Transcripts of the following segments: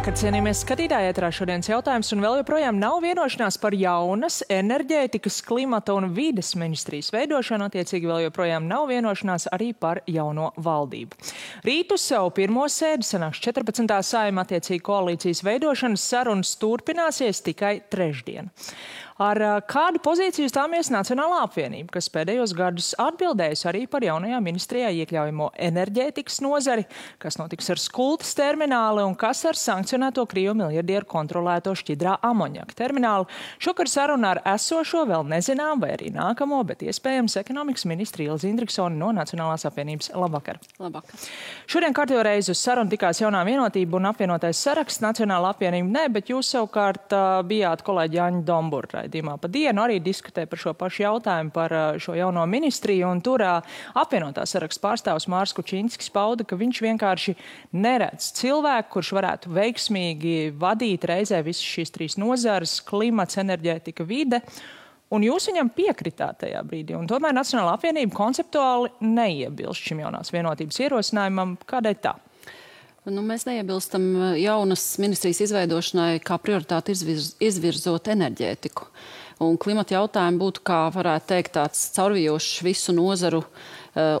Labvakar, cienījamies skatītāji, ēterā šodienas jautājums, un vēl joprojām nav vienošanās par jaunas enerģētikas, klimata un vides ministrijas veidošanu, attiecīgi vēl joprojām nav vienošanās arī par jauno valdību. Rīt uz savu pirmo sēdi sanāks 14. Saeima, attiecīgi koalīcijas veidošanas sarunas turpināsies tikai trešdien. Ar kādu pozīciju stāmies Nacionālā apvienība, kas pēdējos gadus atbildējusi arī par jaunajā ministrijā iekļaujamo enerģētikas nozari, kas notiks ar Skultas termināli un kas ar sankcionēto Krievu miljardieru kontrolēto šķidrā amoņaka terminālu. Šokar saruna ar esošo vēl nezinām, vai arī nākamo, bet iespējams ekonomikas ministri Ilze Indriksone no Nacionālās apvienības. Labvakar. Labvakar. Šodien kārtējo reizi uz sarunu tikās jaunā vienotība un apvienotais saraksts. Nacionālā apvienība ne, bet jūs savukārt bijāt kolēģi Jāņa Dombura raidījumā pa dienu, arī diskutē par šo pašu jautājumu, par šo jauno ministriju, un tur apvienotā saraksta pārstāvs Mārs Kučinskis pauda, ka viņš vienkārši neredz cilvēku, kurš varētu veiksmīgi vadīt reizē visas šīs trīs nozares - klimats, enerģētika, vide. Un jūs viņam piekritāt tajā brīdī, un tomēr Nacionālā apvienība konceptuāli neiebilst šim jaunās vienotības ierosinājumam. Kādēļ tā? Mēs neiebilstam jaunas ministrijas izveidošanai kā prioritāti izvirzot enerģētiku. Un klimata jautājumi būtu, kā varētu teikt, tāds caurvijošs visu nozaru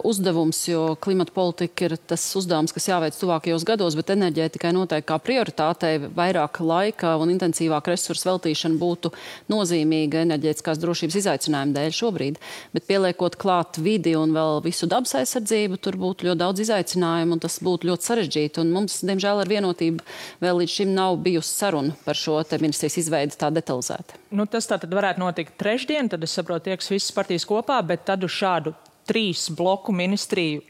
uzdevums, jo klimata politika ir tas uzdevums, kas jāveic tuvākajos gados, bet enerģētikai noteikti kā prioritātei vairāk laika un intensīvāk resursu veltīšana būtu nozīmīga enerģētiskās drošības izaicinājumu dēļ šobrīd. Bet pieliekot klāt vidi un vēl visu dabas aizsardzību, tur būtu ļoti daudz izaicinājumu un tas būtu ļoti sarežģīti. Un mums, diemžēl, ar vienotību vēl līdz šim nav bijusi saruna par šo te ministrijas izveidi tā detalizēta. Tas tātad varētu notikt trešdien, tad es saprotu, tieks visas partijas kopā, bet tad uz šādu 3 bloku ministriju,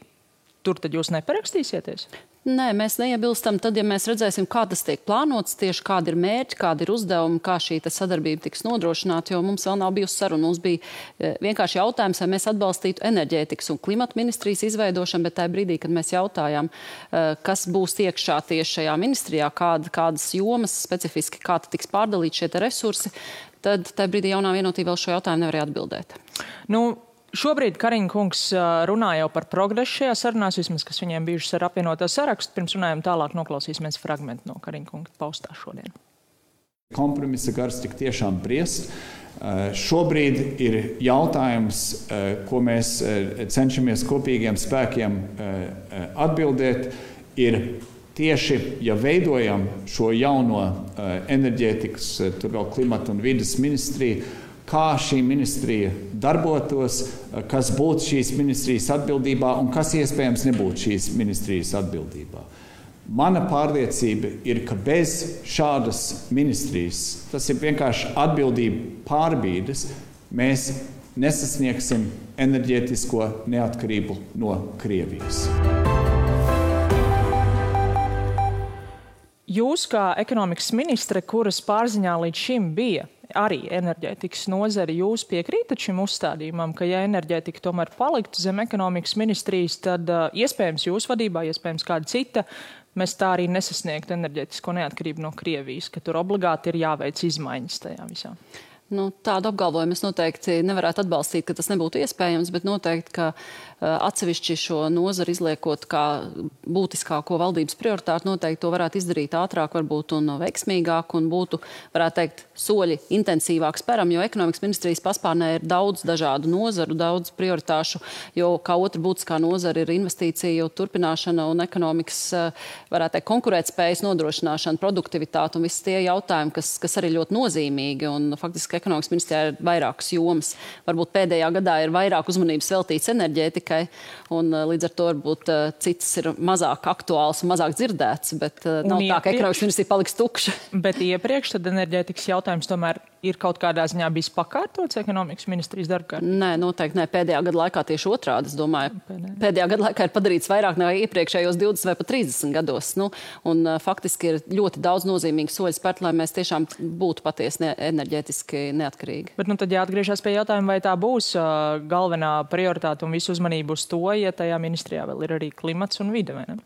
tur tad jūs neparakstīsieties? Nē, mēs neiebilstam tad, ja mēs redzēsim, kā tas tiek plānots, tieši kādi ir mērķi, kādi ir uzdevumi, kā šī sadarbība tiks nodrošināta, jo mums vēl nav bijusi saruna. Mums bija vienkārši jautājums, vai mēs atbalstītu enerģētikas un klimata ministrijas izveidošanu, bet tajā brīdī, kad mēs jautājām, kas būs iekšā tieši šajā ministrijā, kādas jomas specifiski, kā tiks pārdalīt šie resursi, tad tajā brīdī jaunā vienotība vēl šo jautājumu nevarēja atbildēt. Šobrīd Kariņa kungs runā jau par progresu šajā sarunās, vismaz, kas viņiem bijušas ar apvienotā sarakstu. Pirms runājam tālāk, noklausīsimies fragmentu no Kariņa kunga paustā šodien. Kompromisa gars tik tiešām briest. Šobrīd ir jautājums, ko mēs cenšamies kopīgiem spēkiem atbildēt, ir tieši, ja veidojam šo jauno enerģētikas, tur vēl klimata un vides ministriju, kā šī ministrija darbotos, kas būtu šīs ministrijas atbildībā un kas iespējams nebūtu šīs ministrijas atbildībā. Mana pārliecība ir, ka bez šādas ministrijas, tas ir vienkārši atbildība pārbīdes, mēs nesasniegsim enerģētisko neatkarību no Krievijas. Jūs kā ekonomikas ministre, kuras pārziņā līdz šim bija arī enerģētikas nozari, jūs piekrītat šim uzstādījumam, ka ja enerģētika tomēr paliktu zem ekonomikas ministrijas, tad iespējams jūs vadībā, iespējams kāda cita, mēs tā arī nesasniegtu enerģētisko neatkarību no Krievijas, ka tur obligāti ir jāveic izmaiņas tajā visā. Tādu apgalvojumu es noteikti nevarētu atbalstīt, ka tas nebūtu iespējams, bet noteikti, ka atsevišķi šo nozaru izliekot kā būtiskāko valdības prioritāti, noteikti to varētu izdarīt ātrāk, varbūt un veiksmīgāk, un būtu, varētu teikt, soļi intensīvāk speram, jo ekonomikas ministrijas paspārnē ir daudz dažādu nozaru, daudz prioritāšu, jo kā otra būtiskā nozara ir investīciju turpināšana un ekonomikas, varētu teikt, konkurētspējas nodrošināšana, produktivitāte un visi tie jautājumi, kas arī ļoti nozīmīgi, un faktiski ekonomikas ministrijā ir vairākas jomas. Varbūt pēdējā gadā ir vairāk uzmanības veltīts enerģētikai, un līdz ar to varbūt citas ir mazāk aktuāls un mazāk dzirdēts, bet nav tā, ka ekonomikas ministrija paliks tukša. Bet iepriekš tad enerģētikas jautājums tomēr ir kaut kādā ziņā bijis pakārtots ekonomikas ministrijas darbkārtībā? Nē, noteikti nē. Pēdējā gada laikā tieši otrādi, es domāju. Pēdējā gada laikā ir padarīts vairāk nekā iepriekšējos 20 vai pat 30 gados. Un faktiski ir ļoti daudz nozīmīgu soļu spērt, lai mēs tiešām būtu patiesi enerģētiski neatkarīgi. Bet tad jāatgriežas pie jautājuma, vai tā būs galvenā prioritāte un visu uzmanību uz to, ja tajā ministrijā vēl ir arī klimats un vide, vai ne?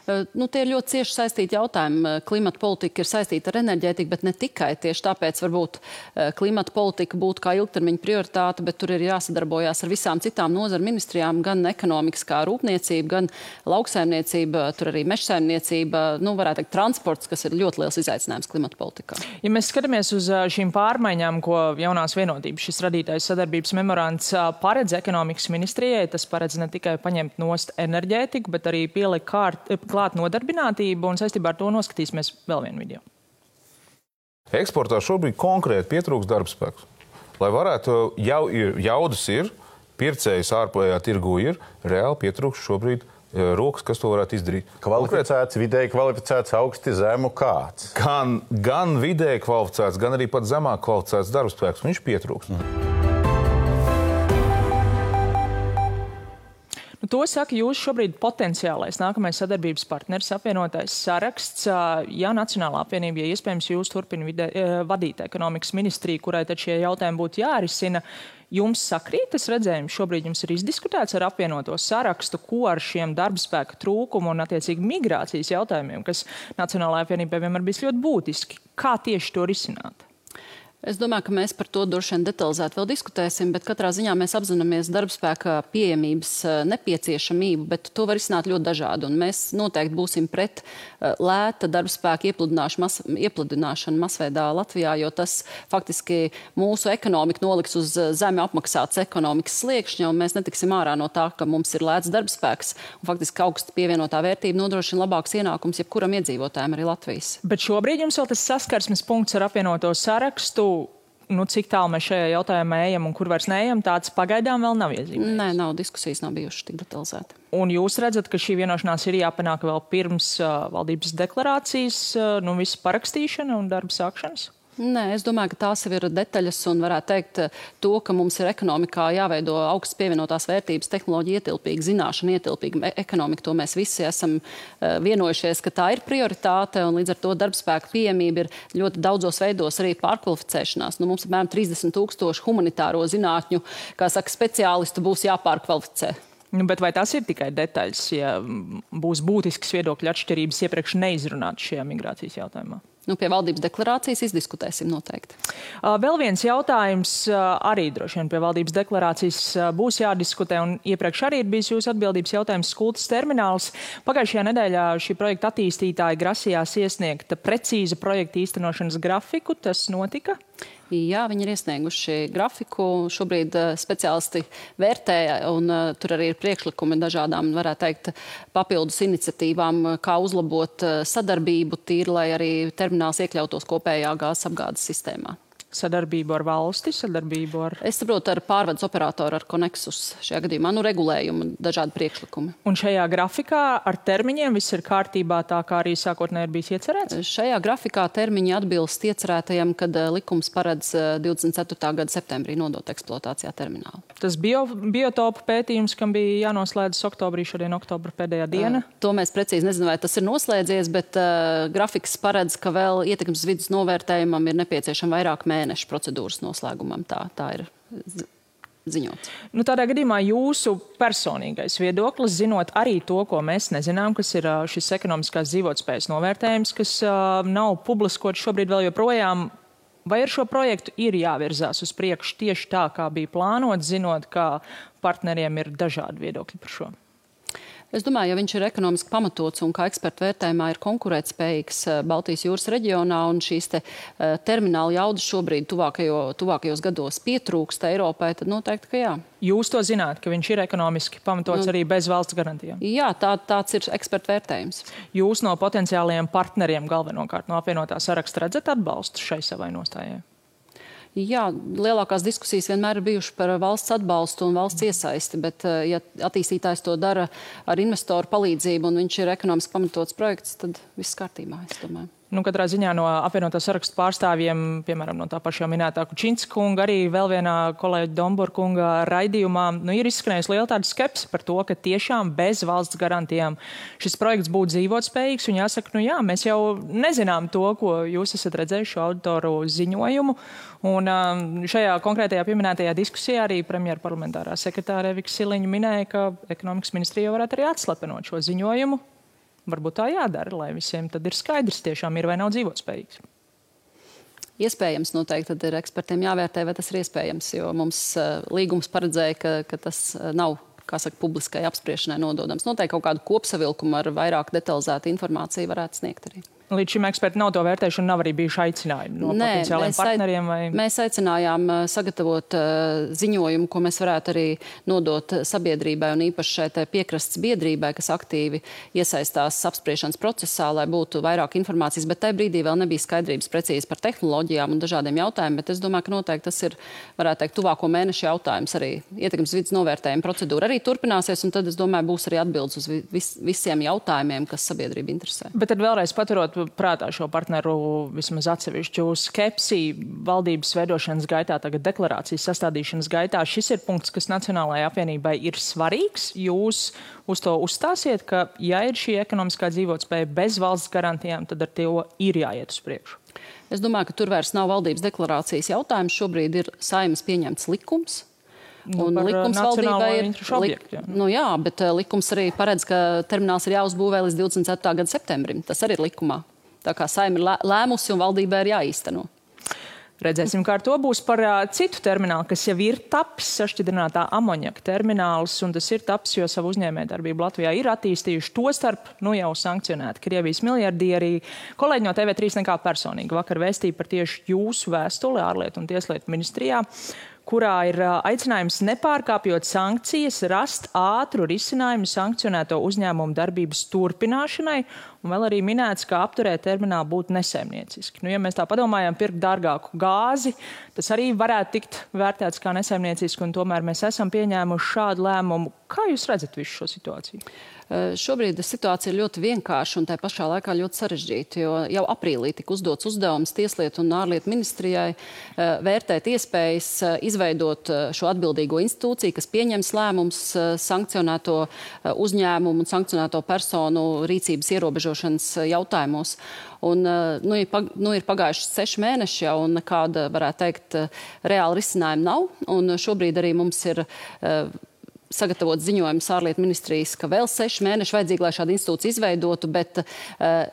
Tie ir ļoti cieši saistīti jautājumi. Klimata politika ir saistīta ar enerģētiku, bet ne tikai. Tieši tāpēc varbūt klimata politika būtu kā ilgtermiņa prioritāte, bet tur ir jāsadarbojās ar visām citām nozaru ministrijām, gan ekonomikas kā rūpniecība, gan lauksaimniecība, tur arī mežsaimniecība, varētu teikt transports, kas ir ļoti liels izaicinājums klimata politikā. Ja mēs skatāmies uz šīm pārmaiņām, ko jaunās vienotības šis radītais sadarbības memorands paredz ekonomikas ministrijai, tas paredz ne tikai paņemt nost enerģētiku, bet arī pielikt klāt nodarbinātību, un saistībā ar to noskatīsimies vēl vienu video. Eksportā šobrīd konkrēti pietrūks darbspēks. Lai varētu, jaudas ir, pircējs ārpējā tirgu ir, reāli pietrūks šobrīd rokas, kas to varētu izdarīt. Kvalificēts, vidēji kvalificēts, augsti zemu kāds. Gan vidēji kvalificēts, gan arī pat zemāk kvalificēts darbspēks. Viņš pietrūks. To saka jūs šobrīd potenciālais nākamais sadarbības partneris, apvienotais saraksts. Ja Nacionālā apvienība, ja iespējams jūs turpina vadīt ekonomikas ministriju, kurai tad šie jautājumi būtu jārisina, jums sakrīt tas redzējums? Šobrīd jums ir izdiskutēts ar apvienoto sarakstu, ko ar šiem darbspēka trūkumu un attiecīgi migrācijas jautājumiem, kas Nacionālajā apvienībā vienmēr bijis ļoti būtiski. Kā tieši to risināt? Es domāju, ka mēs par to droši vien detalizēti vēl diskutēsim, bet katrā ziņā mēs apzināmies darbspēka pieejamības nepieciešamību, bet to var izsnāt ļoti dažādi. Un mēs noteikti būsim pret lēta darbspēka iepludināšanu masveidā Latvijā, jo tas faktiski mūsu ekonomiku noliks uz zemi apmaksātas ekonomikas sliekšņa, un mēs netiksim ārā no tā, ka mums ir lēts darbspēks, un faktiski augsta pievienotā vērtība nodrošina labāks ienākums jebkuram iedzīvotājiem arī Latvijas. Bet šobrīd jums vēl tas saskarsmes punkts ar apvienoto sarakstu, cik tālu mēs šajā jautājumā ejam un kur vairs neejam, tāds pagaidām vēl nav iezīmēts. Nē, diskusijas nav bijušas tik detalizēti. Un jūs redzat, ka šī vienošanās ir jāpanāk vēl pirms valdības deklarācijas, visu parakstīšana un darba sākšanas? Nē, es domāju, ka tās jau ir detaļas un varētu teikt to, ka mums ir ekonomikā jāveido augstas pievienotās vērtības, tehnoloģija ietilpīga, zināšana ietilpīga ekonomika. To mēs visi esam vienojušies, ka tā ir prioritāte, un līdz ar to darbspēka pieejamība ir ļoti daudzos veidos arī pārkvalificēšanās. Mums apmēram 30,000 humanitāro zinātņu, kā saka, speciālistu būs jāpārkvalificē. Bet vai tas ir tikai detaļas, ja būs būtiskas viedokļu atšķirības iepriekš neizrunāt šajā migrācijas jautājumā? Pie valdības deklarācijas izdiskutēsim noteikti. Vēl viens jautājums arī droši vien pie valdības deklarācijas būs jādiskutē, un iepriekš arī ir bijis jūsu atbildības jautājums Skultas termināls. Pagājušajā nedēļā šī projekta attīstītāji grasījās iesniegt precīza projekta īstenošanas grafiku. Tas notika? Jā, viņi ir iesnieguši grafiku. Šobrīd speciālisti vērtē, un tur arī ir priekšlikumi dažādām, varētu teikt, papildus iniciatīvām, kā uzlabot sadarbību tīri, lai arī termināls iekļautos kopējā gāzes apgādes sistēmā. Sadarbību ar valsti, sadarbību ar... Es saprotu, ar pārvades operatoru, ar Konexus šajā gadījumā, regulējumu, dažādi priekšlikumi. Un šajā grafikā ar termiņiem viss ir kārtībā tā, kā arī sākotnēji ir bijis iecerēts? Šajā grafikā termiņi atbilst iecerētajam, kad likums paredz 24. gada septembrī nodot eksploatācijā terminālu. Tas biotopu pētījums, kam bija jānoslēdzas oktobrī, šodien oktobra pēdējā diena? To mēs precīzi nezinām, vai tas ir noslēdzies, bet grafiks paredz, ka vēl ietekmes vidas novērtējumam ir nepieciešama vairāk mēnešu procedūras noslēgumam. Tā ir ziņots. Tādā gadījumā jūsu personīgais viedoklis, zinot arī to, ko mēs nezinām, kas ir šis ekonomiskās dzīvotspējas novērtējums, kas nav publiskots šobrīd vēl joprojām, vai ar šo projektu ir jāvirzās uz priekšu tieši tā, kā bija plānots, zinot, ka partneriem ir dažādi viedokļi par šo? Es domāju, ja viņš ir ekonomiski pamatots un kā ekspertu vērtējumā ir konkurētspējīgs Baltijas jūras reģionā un šīs termināla jaudas šobrīd tuvākajos gados pietrūkst Eiropai, tad noteikti, ka jā. Jūs to zināt, ka viņš ir ekonomiski pamatots arī bez valsts garantijām? Jā, tāds ir ekspertu vērtējums. Jūs no potenciālajiem partneriem galvenokārt no apvienotā saraksta redzat atbalstu šai savai nostājai? Jā, lielākās diskusijas vienmēr ir bijušas par valsts atbalstu un valsts iesaisti, bet ja attīstītājs to dara ar investoru palīdzību un viņš ir ekonomiski pamatots projekts, tad viss kārtībā, es domāju. Katrā ziņā no apvienotā sarakstu pārstāvjiem, piemēram, no tā pašā minētā Kučinska kunga, arī vēl vienā kolēģa Dombora kunga raidījumā, ir izskanējusi liela tāda skepse par to, ka tiešām bez valsts garantijām šis projekts būtu dzīvotspējīgs. Un jāsaka, jā, mēs jau nezinām to, ko jūs esat redzējuši auditoru ziņojumu. Un šajā konkrētajā pieminētajā diskusijā arī premjera parlamentārā sekretāre Evika Siliņa minēja, ka ekonomikas ministrija varētu arī atslepenot šo ziņojumu. varbūt tā jādara, lai visiem tad ir skaidrs, tiešām ir vai nav dzīvotspējīgs. Iespējams, noteikti tad ir ekspertiem jāvērtē, vai tas ir iespējams, jo mums līgums paredzēja, ka tas nav, kā saka, publiskai apspriešanai nododams. Noteikti kaut kādu kopsavilkumu ar vairāk detalizētu informāciju varētu sniegt arī. Līdz šim eksperti nav to vērtējuši un nav arī bijuši aicinājumi no potenciāliem partneriem? Mēs aicinājām sagatavot ziņojumu, ko mēs varētu arī nodot sabiedrībai un īpaši šai piekrastes biedrībai, kas aktīvi iesaistās apspriešanas procesā, lai būtu vairāk informācijas, bet tajā brīdī vēl nebija skaidrības precīzi par tehnoloģijām un dažādiem jautājumiem, bet es domāju, ka noteikti tas ir, varētu teikt, tuvāko mēnešu jautājums arī ietekmes vides novērtējuma procedūra arī turpināsies, un tad, es domāju, būs arī atbildes uz visiem jautājumiem, kas sabiedrību interesē. Bet tad vēlreiz paturot prātā šo partneru vismaz atsevišķu skepsi valdības veidošanas gaitā, tagad deklarācijas sastādīšanas gaitā. Šis ir punkts, kas Nacionālajai apvienībai ir svarīgs. Jūs uz to uzstāsiet, ka, ja ir šī ekonomiskā dzīvotspēja bez valsts garantijām, tad ar to ir jāiet uz priekšu. Es domāju, ka tur vairs nav valdības deklarācijas jautājums. Šobrīd ir Saeimas pieņemts likums. Un likums valdībai ir, bet likums arī paredz, ka termināls ir jāuzbūvē līdz 24. gada septembrim. Tas arī ir likumā. Tā kā Saeima ir lēmusi un valdībai ir jāīsteno. Redzēsim, kā ar to būs par citu terminālu, kas jau ir tapis, sašķidrinātā amoņaka termināls, un tas ir tapis, jo savu uzņēmējdarbību Latvijā ir attīstījuši, tostarp jau sankcionēti Krievijas miljardieri. Kolēģi no TV3 nekā personīgi vakar vēstīja par tieši jūsu vēstuli ārlietu un tieslietu ministrijā, kurā ir aicinājums nepārkāpjot sankcijas, rast ātru risinājumu sankcionēto uzņēmumu darbības turpināšanai, un vēl arī minēts, ka apturēt terminālu būtu nesaimnieciski. Ja mēs tā padomājam, pirkt dārgāku gāzi, tas arī varētu tikt vērtēts kā nesaimnieciski, un tomēr mēs esam pieņēmuši šādu lēmumu. Kā jūs redzat visu šo situāciju? Šobrīd situācija ir ļoti vienkārša un tā pašā laikā ļoti sarežģīta, jo jau aprīlī tika uzdots uzdevums Tieslietu un ārlietu ministrijai vērtēt iespējas izveidot šo atbildīgo institūciju, kas pieņems lēmums sankcionēto uzņēmumu un sankcionēto personu rīcības ierobežošanas jautājumos. Un, ir pagājuši 6 mēneši jau, un nekāda, varētu teikt, reāla risinājuma nav. Un šobrīd arī mums ir sagatavot ziņojumus ārlietu ministrijas, ka vēl 6 mēneši vajadzīgi, lai šādu institūciju izveidotu, bet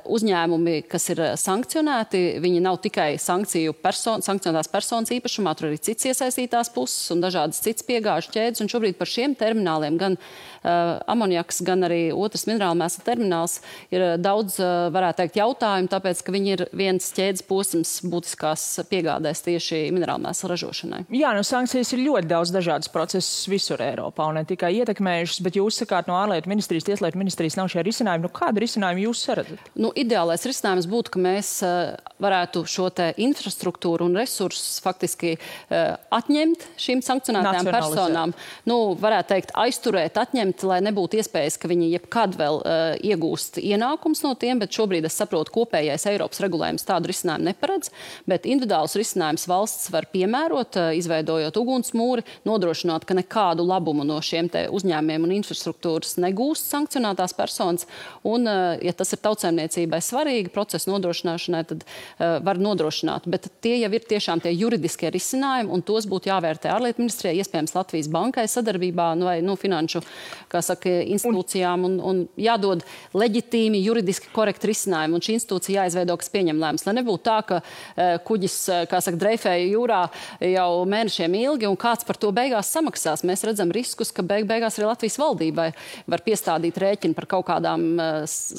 uzņēmumi, kas ir sankcionēti, viņi nav tikai sankcionētās personas īpašumā, tur arī cits iesaistītās puses un dažādas cits piegāžu ķēdes, un šobrīd par šiem termināliem gan amonjaks, gan arī otrs minerālmēsla termināls ir daudz, varētu teikt, jautājumu, tāpēc, ka viņi ir viens ķēdes posms būtiskās piegādēs tieši minerālmēsla ražošanai. Jā, sankcijas ir ļoti daudz dažādas procesus visur Eiropā, un ne tikai ietekmējušas, bet jūs sakāt, no ārlietu ministrijas, tieslietu ministrijas nav šie risinājumi. Kādu risinājumu jūs saredzat? Ideālais risinājums būtu, ka mēs varētu šo te infrastruktūru un resursus faktiski atņemt šīm sankcionētajām personām. Varētu teikt, aizturēt, atņemt, lai nebūtu iespējas, ka viņi jebkad vēl iegūst ienākums no tiem, bet šobrīd es saprotu, kopējais Eiropas regulējums tādu risinājumu neparedz, bet individuāls risinājums valsts var piemērot, izveidojot ugunsmūri, nodrošināt, ka nekādu labumu no šiem te uzņēmiem un infrastruktūras negūst sankcionētās personas, un, ja tas ir tautsēmniecībai svarīgi procesu nodrošināšanai, tad var nodrošināt. Bet tie jau ir tiešām tie juridiskie risinājumi, un tos būtu jāvērtē ārlietu ministrijai, iespējams Latvijas bankai sadarbībā vai finanšu, kā saka, institūcijām, un jādod leģitīmi, juridiski korekti risinājumi, un šī institūcija jāizveido, kas pieņem lēmumus. Lai nebūtu tā, ka kuģis, kā saka, dreifēja jūrā jau mēnešiem ilgi, un kāds par to beigās samaksās. Mēs redzam riskus, ka beigās arī Latvijas valdībai var piestādīt rēķinu par kaut kādām,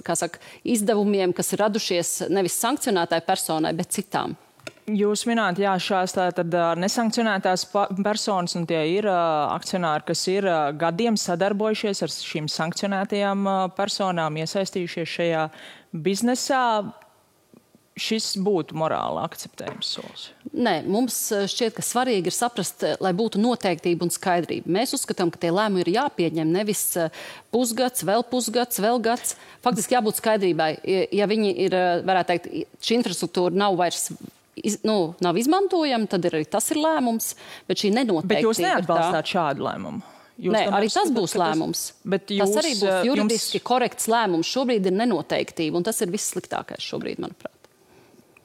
kā saka, izdevumiem, kas ir radušies nevis sankcionētai personai, bet citām. Jūs minējāt, jā, šās tātad nesankcionētās personas, un tie ir akcionāri, kas ir gadiem sadarbojušies ar šīm sankcionētajām personām, iesaistījušies šajā biznesā. Šis būtu morāli akceptējams solis? Nē, mums šķiet, ka svarīgi ir saprast, lai būtu noteiktība un skaidrība. Mēs uzskatām, ka tie lēmumi ir jāpieņem nevis pusgads, vēl gads. Faktiski jābūt skaidrībai. Ja viņi ir, varētu teikt, šī infrastruktūra nav vairs nav izmantojama, tad arī tas ir lēmums, bet šī nenoteiktība. Bet jūs neatbalstāt šādu lēmumu? Nē, arī tas būs lēmums. Tas arī būs juridiski korekts lēmums. Šobrīd ir nenoteiktība, un tas ir viss sliktākais šobrīd, manuprāt.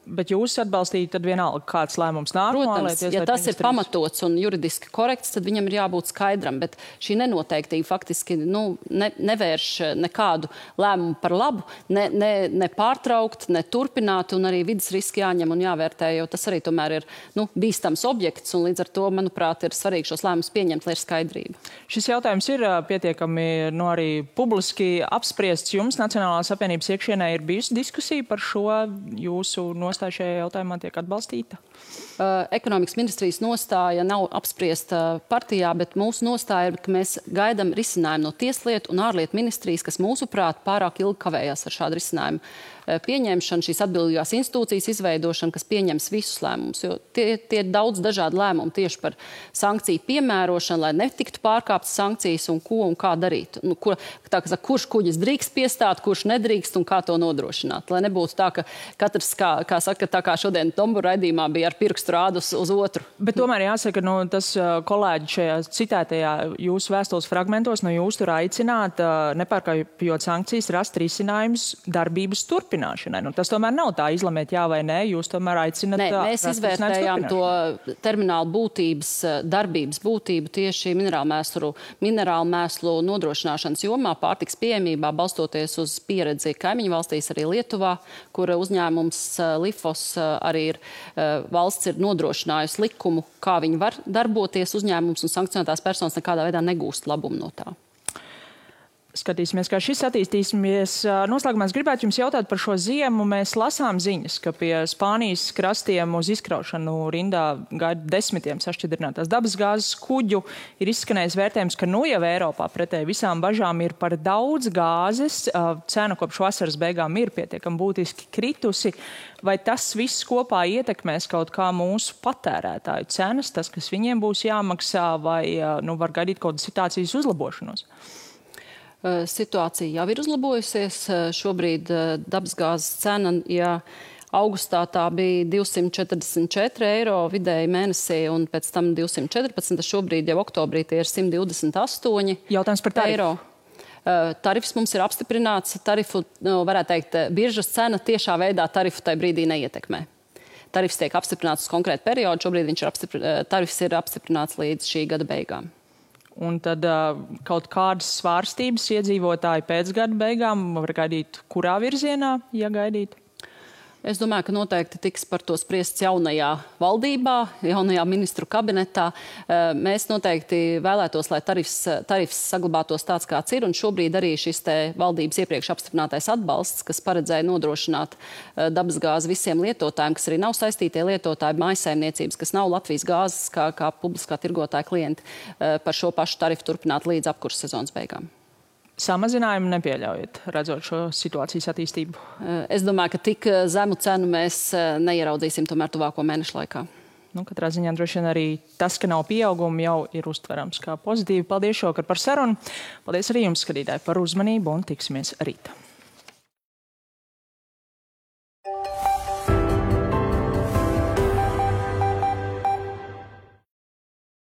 Bet jūs atbalstīt tad vienalga, kāds lēmums nāk? Protams, ja tas ir pamatots un juridiski korekts, tad viņam ir jābūt skaidram, bet šī nenoteiktība faktiski nevērš nekādu lēmumu par labu, ne pārtraukt, ne turpināt, un arī vidas riski jāņem un jāvērtē, jo tas arī tomēr ir bīstams objekts, un līdz ar to, manuprāt, ir svarīgi šos lēmumus pieņemt, lai ir skaidrība. Šis jautājums ir pietiekami arī publiski apspriests. Jums Nacionālās apvienības iekšienē ir bijusi diskusija par šo, jūsu nostāju šajā jautājumā tiek atbalstīta? Ekonomikas ministrijas nostāja nav apspriesta partijā, bet mūsu nostāja ir, ka mēs gaidām risinājumu no Tieslietu un ārlietu ministrijas, kas mūsuprāt pārāk ilgi kavējās ar šādu risinājumu pieņemšanu, šīs atbildīgās institūcijas izveidošanu, kas pieņems visus lēmumus. Jo tie ir daudz dažādi lēmumi tieši par sankciju piemērošanu, lai netiktu pārkāptas sankcijas un ko un kā darīt. Kurš kuģis drīkst piestāt, kurš nedrīkst un kā to nodrošināt. Lai nebūtu tā, ka katrs, kā saka, tā kā šodien Tombura raidījumā bija ar pirkstu rādu uz otru. Bet tomēr jāsaka, tas kolēģi šajā citētajā jūsu vēstules fragmentos, jūs tur aicināt, nepārkāpjot sankcijas, rast risinājums darbības turpināšanai. Tas tomēr nav tā izlemēt jā vai nē, jūs tomēr aicināt. Nē, mēs izvērtējām to terminālu darbības būtību tieši minerālu mēslu nodrošināšanas jomā, pārtiks pieejamībā, balstoties uz pieredzi kaimiņu valstīs, arī Lietuvā, kur uzņēmums Lifos arī ir valsts ir nodrošinājusi likumu, kā viņi var darboties uzņēmums, un sankcionētās personas nekādā veidā negūst labumu no tā. Skatīsimies, kā šis attīstīsimies. Noslēgumā es gribētu jums jautāt par šo ziemu. Mēs lasām ziņas, ka pie Spānijas krastiem uz izkraušanu rindā gaida desmitiem sašķidrinātās dabasgāzes kuģu. Ir izskanējis vērtējums, ka jau Eiropā pretēji visām bažām ir par daudz gāzes. Cena kopš vasaras beigām ir pietiekami būtiski kritusi. Vai tas viss kopā ietekmēs kaut kā mūsu patērētāju cenas, tas, kas viņiem būs jāmaksā, vai var gaidīt kaut kādu situācijas uzlabošanos? Situācija jau ir uzlabojusies. Šobrīd dabasgāzes cena, ja augustā tā bija 244 eiro vidēji mēnesī un pēc tam 214, šobrīd jau oktobrī tie ir 128 Jautājums par eiro. Tarifs mums ir apstiprināts. Tarifu, varētu teikt, biržas cena tiešā veidā tarifu tajā brīdī neietekmē. Tarifs tiek apstiprināts uz konkrētu periodu. Šobrīd tarifs ir apstiprināts līdz šī gada beigām. Un tad kaut kādas svārstības iedzīvotāji pēc gada beigām var gaidīt, kurā virzienā, ja gaidīt? Es domāju, ka noteikti tiks par to spriests jaunajā valdībā, jaunajā ministru kabinetā. Mēs noteikti vēlētos, lai tarifs saglabātos tāds, kāds ir, un šobrīd arī šis te valdības iepriekš apstiprinātais atbalsts, kas paredzēja nodrošināt dabasgāzi visiem lietotājiem, kas arī nav saistītie lietotāji, mājsaimniecības, kas nav Latvijas gāzes kā publiskā tirgotāja klienti, par šo pašu tarifu turpināt līdz apkurses sezonas beigām. Samazinājumu nepieļaujat, redzot šo situācijas attīstību? Es domāju, ka tik zemu cenu mēs neieraudzīsim tomēr tuvāko mēnešu laikā. Katrā ziņā droši vien arī tas, ka nav pieauguma, jau ir uztverams kā pozitīvi. Paldies šovakar par sarunu. Paldies arī jums, skatītāji, par uzmanību un tiksimies rīt.